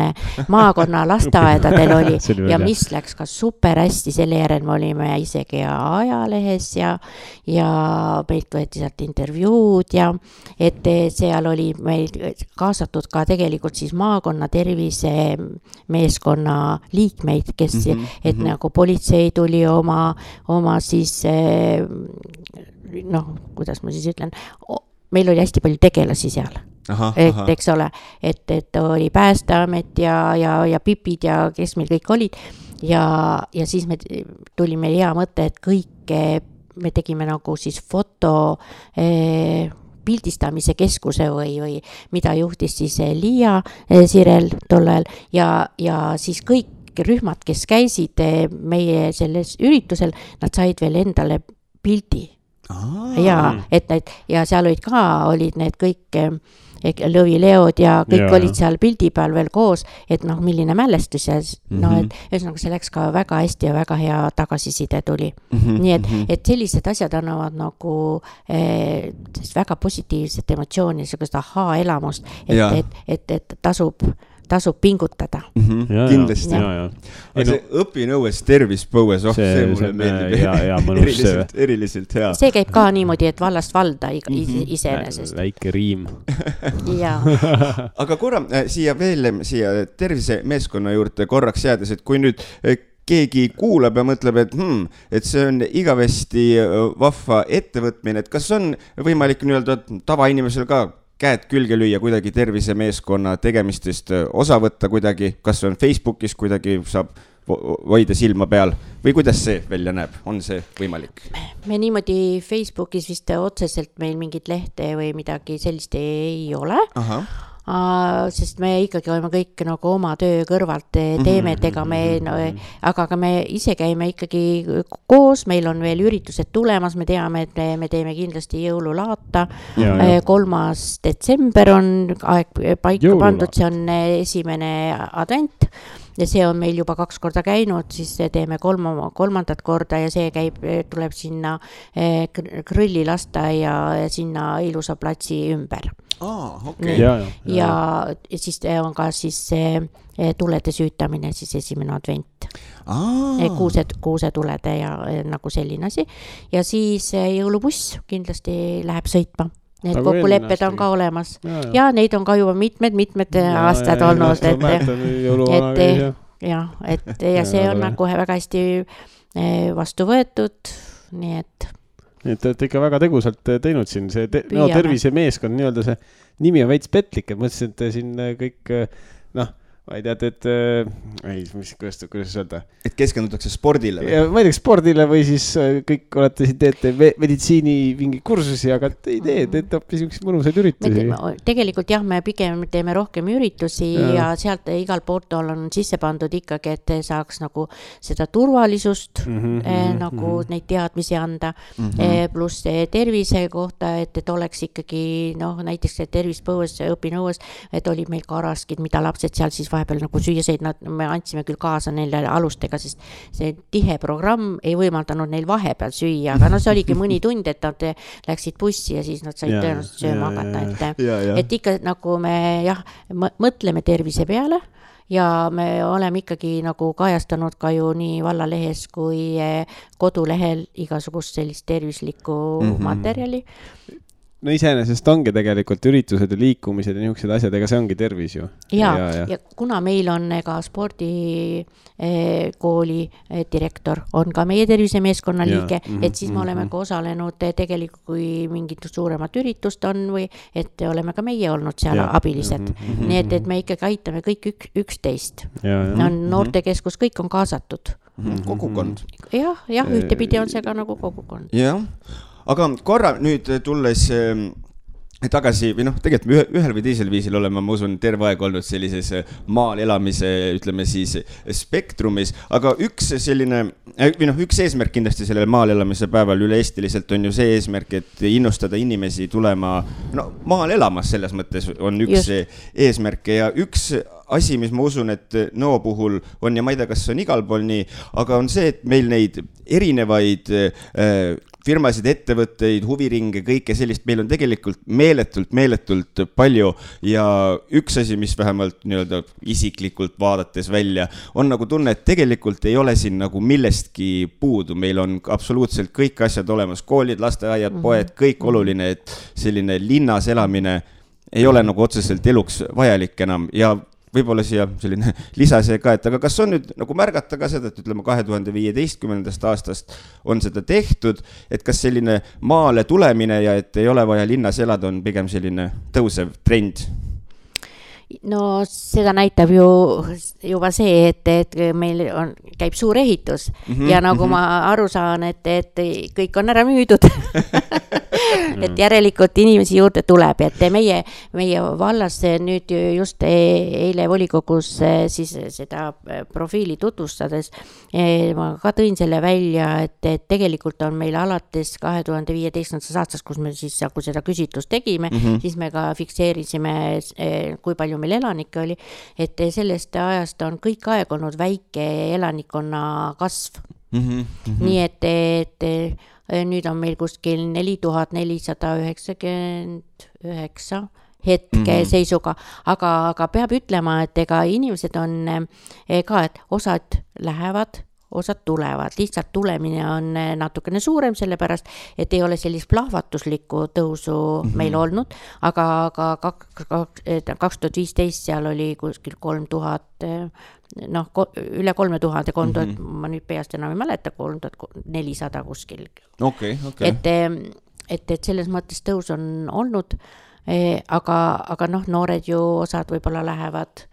maakonna lasteaedadel oli ja mis läks ka super hästi, selle järel me olime isegi ajalehes ja meilt võeti sealt intervjuud ja et seal oli meil kaasatud ka tegelikult siis maakonna tervisemeeskonna liikmeid, kes et nagu politsei tuli oma siis noh, kuidas ma siis ütlen, meil oli hästi palju tegelasi seal. Eks ole, et oli Päästeamet ja pipid ja kes meil kõik olid ja siis me tulime hea mõte, et kõik me tegime nagu siis foto pildistamise keskuse või mida juhtis siis Liia Sirel tollel ja siis kõik rühmad, kes käisid meie selles üritusel, nad said veel endale pildi. Ja seal olid need kõik lõvileod ja kõik olid seal pildi peal veel koos, et noh, milline mälestus ja ühesõnaga see läks ka väga hästi ja väga hea tagasiside tuli. Nii et sellised asjad annavad nagu väga positiivset emotsiooni, sellist elamust, et tasub pingutada. Kindlasti. See õpinõues tervispõues, see mulle meeldib eriliselt hea. See käib ka niimoodi, et vallast valda iseenesest. Väike riim. Aga korra siia tervisemeeskonna juurde korraks jäädes, et kui nüüd keegi kuulab ja mõtleb, et see on igavesti vahva ettevõtmine, et kas on võimalik nii-öelda tavainimesel ka käed külge lüüa kuidagi tervisemeeskonna tegemistest osa võtta kuidagi, kas on Facebookis kuidagi saab hoida silma peal või kuidas see välja näeb, on see võimalik? Me niimoodi Facebookis vist otseselt meil mingit lehte või midagi sellist ei ole. Sest me ikkagi oleme kõik nagu oma töö kõrvalt teeme, et aga me ise käime ikkagi koos, meil on veel üritused tulemas, me teame, et me teeme kindlasti jõululaata. 3. detsember on aeg paika pandud, see on esimene advent ja see on meil juba 2 korda käinud, siis teeme 3. korda ja see tuleb sinna Krõllilasta ja sinna ilusa platsi ümber. Ja siis on ka siis tulede süütamine, siis esimene advent. Kuusetulede ja nagu selline asi. Ja siis jõulubuss kindlasti läheb sõitma. Need kokkulepped on ka olemas. Ja neid on ka juba mitmed aastad olnud. Ja see on nagu väga hästi vastu võetud, nii et et te olete ikka väga tegusalt teinud siin see tervisemeeskond, nii-öelda see nimi on veits petlik, et mõtlesin, et siin kõik, ma ei tea, kuidas öelda? Et keskendutakse spordile või? Ma ei tea, spordile või siis kõik olete siin teete meditsiini mingi kursusi, aga ei teete hoopis üks mõnusaid üritusi. Tegelikult jah, me pigem teeme rohkem üritusi ja sealt igal poolt on sisse pandud ikkagi, et saaks nagu seda turvalisust nagu neid teadmisi anda, pluss tervise kohta, et oleks ikkagi näiteks tervispõues, õpinõues, et olid meil karaskid, mida lapsed seal siis vahepeal nagu süüa said, me andsime küll kaasa neile alustega, sest see tihe programm ei võimaldanud neil vahepeal süüa, aga see oligi mõni tund, et nad läksid bussi ja siis nad said tõenäoliselt sööma hakata, et ikka nagu me mõtleme tervise peale ja me oleme ikkagi nagu kajastanud ka ju nii vallalehes kui kodulehel igasugust sellist tervislikku materjali. No iseenesest ongi tegelikult üritused ja liikumised ja niisugused asjad, ega see ongi tervis ju. Ja kuna meil on ka spordikooli direktor, on ka meie tervisemeeskonna liige, et siis me oleme ka osalenud tegelikult, kui mingit suuremat üritust on või et oleme ka meie olnud seal abilised. Nii et me ikkagi aitame kõik üksteist. Noortekeskus, kõik on kaasatud. Kogukond. Jah, ühtepidi on see ka nagu kogukond. Jah. Aga korra nüüd tulles tagasi, või tegelikult ühel või teisel viisil oleme, ma usun, terve aeg olnud sellises maal elamise, ütleme siis, spektrumis, aga üks eesmärk kindlasti sellel maal elamise päeval üle-eestiliselt on ju see eesmärk, et innustada inimesi tulema maal elamas, selles mõttes on üks eesmärk ja üks asi, mis ma usun, et Nõo puhul on ja ma ei tea, kas on igal pool nii, aga on see, et meil neid erinevaid firmasid, ettevõtteid, huviringe, kõike sellist, meil on tegelikult meeletult palju ja üks asi, mis vähemalt nii-öelda isiklikult vaadates välja, on nagu tunne, et tegelikult ei ole siin nagu millestki puudu, meil on absoluutselt kõik asjad olemas, koolid, lasteaiad, poed, kõik oluline, et selline linnas elamine ei ole nagu otseselt eluks vajalik enam ja võib-olla siia selline lisase ka, et aga kas on nüüd nagu märgata ka seda, et ütleme 2015. aastast on seda tehtud, et kas selline maale tulemine ja et ei ole vaja linnas elada on pigem selline tõusev trend? No seda näitab ju juba see, et meil käib suur ehitus ja nagu ma aru saan, et kõik on ära müüdud. Et järelikult inimesi juurde tuleb, et meie vallas nüüd just eile volikogus siis seda profiili tutvustades ma ka tõin selle välja, et tegelikult on meil alates 2015. aastast, kus me siis kui seda küsitlust tegime, siis me ka fikseerisime, kui palju meil elanikke oli, et sellest ajast on kõik aeg olnud väike elanikkonna kasv. Nii et nüüd on meil kuskil 4499 hetke seisuga, aga peab ütlema, et ega inimesed on ka, et osad lähevad, osad tulevad, lihtsalt tulemine on natukene suurem, sellepärast, et ei ole sellist plahvatuslikku tõusu meil olnud, aga 2015 seal oli kuskil 3000, üle 3000, ma nüüd peast enam ei mäleta, 3400 kuskil. Okay. Et selles mõttes tõus on olnud, aga noored ju osad võib-olla lähevad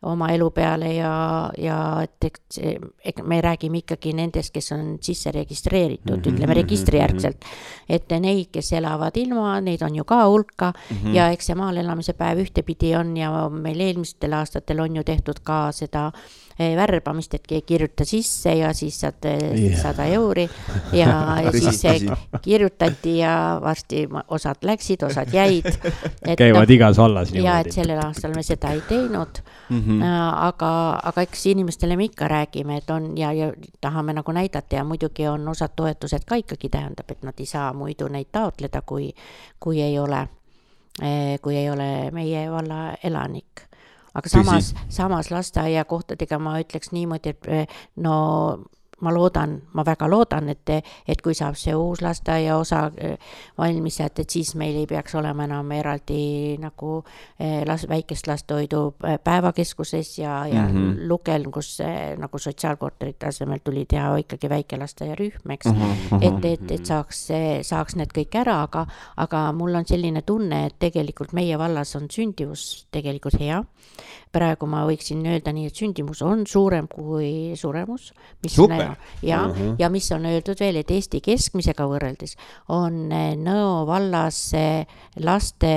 oma elu peale ja et me räägime ikkagi nendest, kes on sisse registreeritud, ütleme registrijärgselt, et neid, kes elavad ilma, neid on ju ka hulka ja eks see maal elamise päev ühtepidi on ja meil eelmistel aastatel on ju tehtud ka seda värbamist, et kirjuta sisse ja siis saad 100 euri ja siis kirjutati ja varsti osad läksid, osad jäid. Käivad igas vallas niimoodi. Ja et sellel aastal me seda ei teinud, aga eks inimestele me ikka räägime, et on ja tahame nagu näidata ja muidugi on osad toetused ka ikkagi tähendab, et nad ei saa muidu neid taotleda, kui ei ole meie valla elanik. Aga samas lasteaia kohtadega ma ütleks niimoodi, et ma väga loodan, et kui saab see uus lasteaia osa valmis, et siis meil ei peaks olema enam eraldi nagu väikest lastehoidu päevakeskuses ja Lukel, kus nagu sotsiaalkorterite asemel tuli teha ikkagi väike lasteaia rühm, eks, et saaks need kõik ära, aga mul on selline tunne, et tegelikult meie vallas on sündivus tegelikult hea. Praegu ma võiksin öelda nii, et sündimus on suurem kui suremus, mis ja mis on öeldud veel, et Eesti keskmisega võrreldes on Nõo vallas laste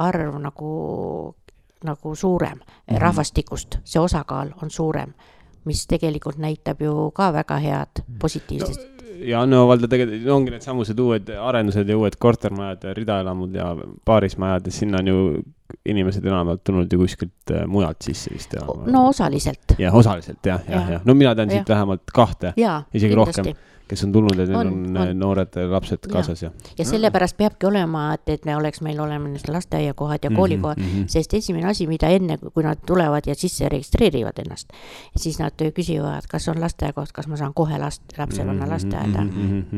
arv nagu suurem rahvastikust, see osakaal on suurem, mis tegelikult näitab ju ka väga head positiivsest. Ja Nõo valda tegelikult ongi need samused uued arendused ja uued kortermajad ja ridaelamud ja paarismajad ja sinna on ju inimesed enamalt tulnud ju kuskilt mujalt sisse vist. No osaliselt. Ja osaliselt, jah. No mina tean siit vähemalt 2, isegi rohkem. kes on tulnud ja neil on noored lapsed kaasas. Ja sellepärast peabki olema, et me meil oleme lasteaiakohad ja koolikohad, sest esimene asi, mida enne, kui nad tulevad ja sisse registreerivad ennast, siis nad küsivad, kas on lasteaiakoht, kas ma saan kohe lapse panna lasteaeda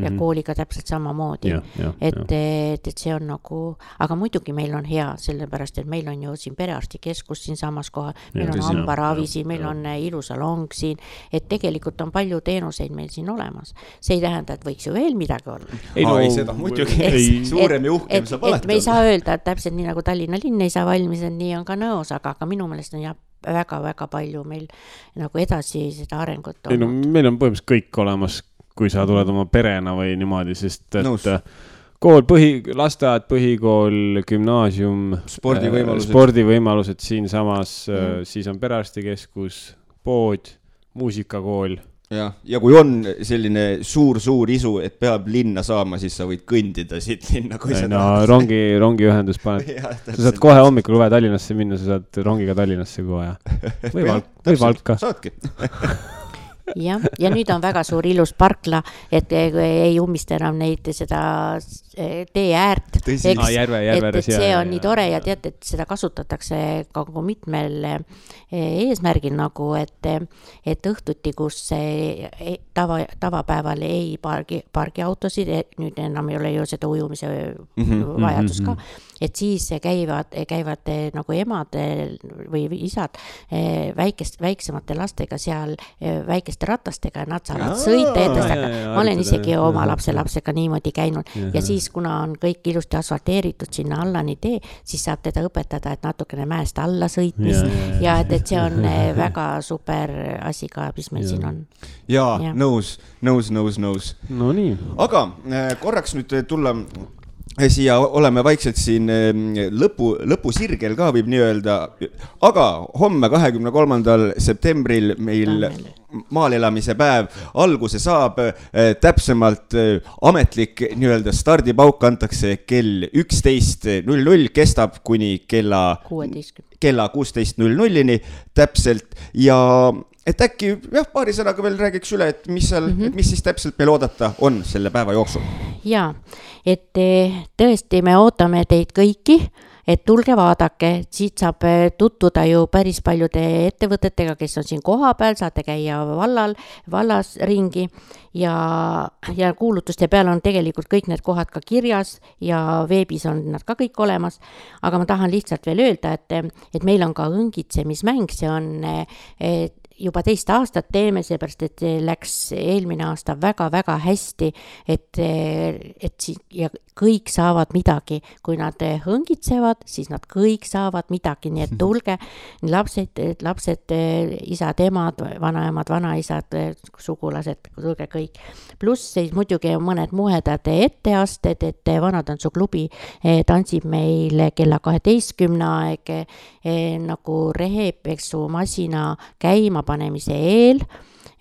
ja kooliga täpselt samamoodi. Et see on nagu, aga muidugi meil on hea, sellepärast, et meil on ju siin perearstikeskus siin samas kohal, meil on hambaravi siin, meil on ilusalong siin, et tegelikult on palju teenuseid meil siin olemas. See ei tähenda, et võiks ju veel midagi olla. Ei seda muidugi, suurem ja uhkem saab alati. Me ei saa öelda, et täpselt nii nagu Tallinna linn ei saa valmis, et nii on ka Nõos, aga minu meelest on väga-väga palju meil nagu edasi seda arengut olnud. Meil on põhimõtteliselt kõik olemas, kui sa tuled oma perena või niimoodi, sest et kool, lasteaed, põhikool, gümnaasium, spordivõimalused siin samas, siis on perearstikeskus, pood, muusikakool. Ja kui on selline suur isu, et peab linna saama, siis sa võid kõndida siit linna. Rongiühendus paned. Sa saad kohe hommikul vaja Tallinnasse minna, sa saad rongiga Tallinnasse kohe. Või Valka. Saadki. Ja nüüd on väga suur ilus parkla, et ei ummista enam neid seda tee äärt. Et see on nii tore ja tead, et seda kasutatakse ka mitmel eesmärgil nagu, et õhtuti, kus tavapäeval ei pargi autosid, nüüd enam ei ole ju seda ujumise vajadus ka, et siis käivad nagu emad või isad väiksemate lastega seal väikeste ratastega ja nad saavad sõita edasi. Ma olen isegi oma lapsega niimoodi käinud ja siis, kuna on kõik ilusti asfalteeritud sinna alla nii tee, siis saab teda õpetada, et natukene mäest alla sõitmis ja et see on väga super asi ka, mis meil siin on. Ja, nõus. No nii. Aga korraks nüüd tulla siia, oleme vaikselt siin lõpusirgel ka võib nii öelda, aga homme 23. septembril meil maalelamise päev alguse saab, täpsemalt ametlik nii öelda stardipauk antakse kell 11.00, kestab kuni kella 16.00-ni täpselt ja et äkki paari sõnaga veel räägiks üle, et mis siis täpselt meil oodata on selle päeva jooksul? Ja, et tõesti me ootame teid kõiki, et tulge vaadake, siit saab tutvuda ju päris paljude ettevõtetega, kes on siin koha peal, saate käia vallas ringi ja kuulutuste peal on tegelikult kõik need kohad ka kirjas ja veebis on nad ka kõik olemas, aga ma tahan lihtsalt veel öelda, et meil on ka õngitsemismäng, see on juba 2 aastat teeme, seepärast, et läks eelmine aasta väga-väga hästi, et ja kõik saavad midagi. Kui nad hõngitsevad, siis nad kõik saavad midagi, nii et tulge lapsed, isad, emad, vanaemad, vanaisad, sugulased, tulge kõik. Pluss siis muidugi mõned muhedad etteasted, et Vanatansu klubi tantsib meil kella 12 aeg nagu rehepesumasina käima panemise eel,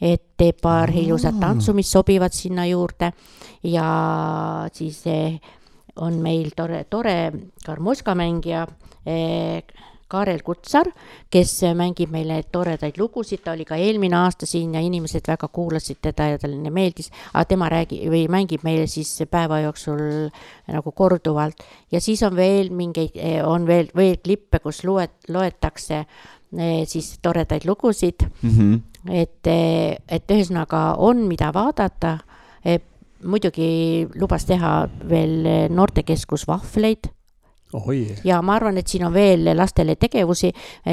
et teeb paar ilusat tantsu, mis sobivad sinna juurde ja siis on meil tore karmoskamängija Kaarel Kutsar, kes mängib meile toredaid lugusid, ta oli ka eelmine aasta siin ja inimesed väga kuulasid teda ja talle meeldis, aga tema mängib meile siis päeva jooksul nagu korduvalt ja siis on veel on veel klippe, kus loetakse siis toredaid lugusid, et ühesõnaga on mida vaadata, muidugi lubas teha veel noortekeskus vahvleid. Ja ma arvan, et siin on veel lastele tegevusi,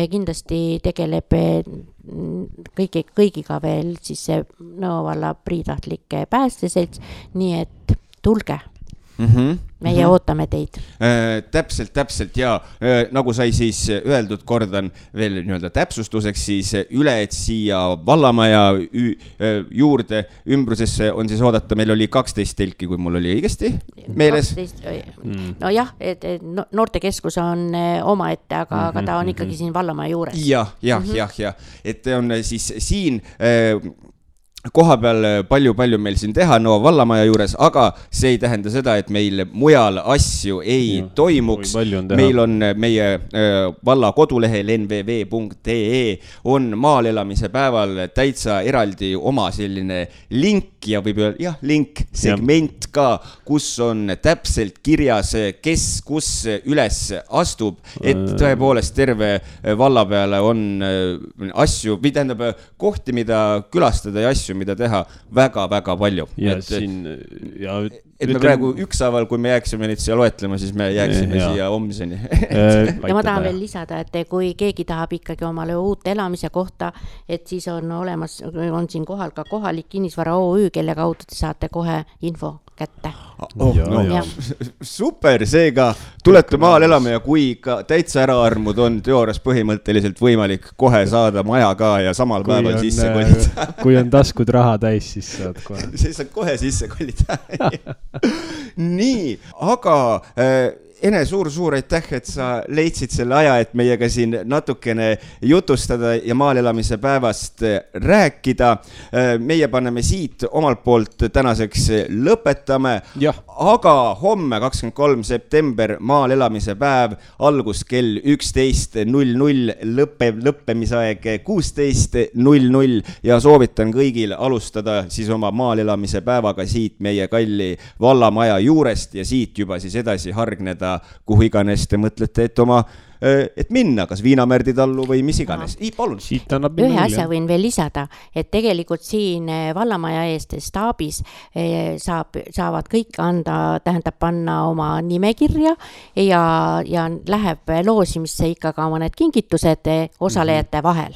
kindlasti tegeleb kõigiga veel siis Nõo valla priitahtlike päästeselts, nii et tulge. Meie ootame teid. Täpselt ja nagu sai siis öeldud, kordan veel nii-öelda täpsustuseks siis üle, et siia vallamaja juurde ümbrusesse on siis oodata, meil oli 12 telki, kui mul oli õigesti meeles. No jah, et noortekeskus on omaette, aga ta on ikkagi siin vallamaja juures. Ja, et on siis siin koha peal palju meil siin teha Nõo vallamaja juures, aga see ei tähenda seda, et meil mujal asju ei toimuks. Meil on meie valla kodulehel nvv.ee on maalelamise päeval täitsa eraldi oma selline link, link ja võib öelda, jah, link, segment ka, kus on täpselt kirjas, kes kus üles astub, et tõepoolest terve valla peale on asju, või tähendab kohti, mida külastada ja asju, mida teha väga-väga palju. Et me praegu ükshaaval, kui me jääksime neid siia loetlema, siis me jääksime siia homseni. Ja ma tahan veel lisada, et kui keegi tahab ikkagi omale uut elamise kohta, et siis on olemas, on siin kohal ka kohalik kinnisvara OÜ, kelle kaudu te saate kohe info kätte. Super, seega tulete maal elama ja kui ka täitsa äraarmud on teoorias põhimõtteliselt võimalik kohe saada maja ka ja samal päeval sisse kolida. Kui on taskud raha täis, siis saad kohe. Siis saad kohe sisse kolida. Nii, aga Ene, suur aitäh, et sa leidsid selle aja, et meiega siin natukene jutustada ja maalelamise päevast rääkida. Meie paneme siit omalt poolt tänaseks lõpetame, aga homme 23. september maalelamise päev, algus kell 11.00, lõppemisaeg 16.00 ja soovitan kõigil alustada siis oma maalelamise päevaga siit meie kalli vallamaja juurest ja siit juba siis edasi hargneda kuhu iganes te mõtlete, et minna, kas Viinamärdi tallu või mis iganes. Palun. Ühe asja võin veel lisada, et tegelikult siin vallamaja eest staabis saavad kõik tähendab panna oma nimekirja ja läheb loosimisse ikka ka mõned kingitused osalejate vahel.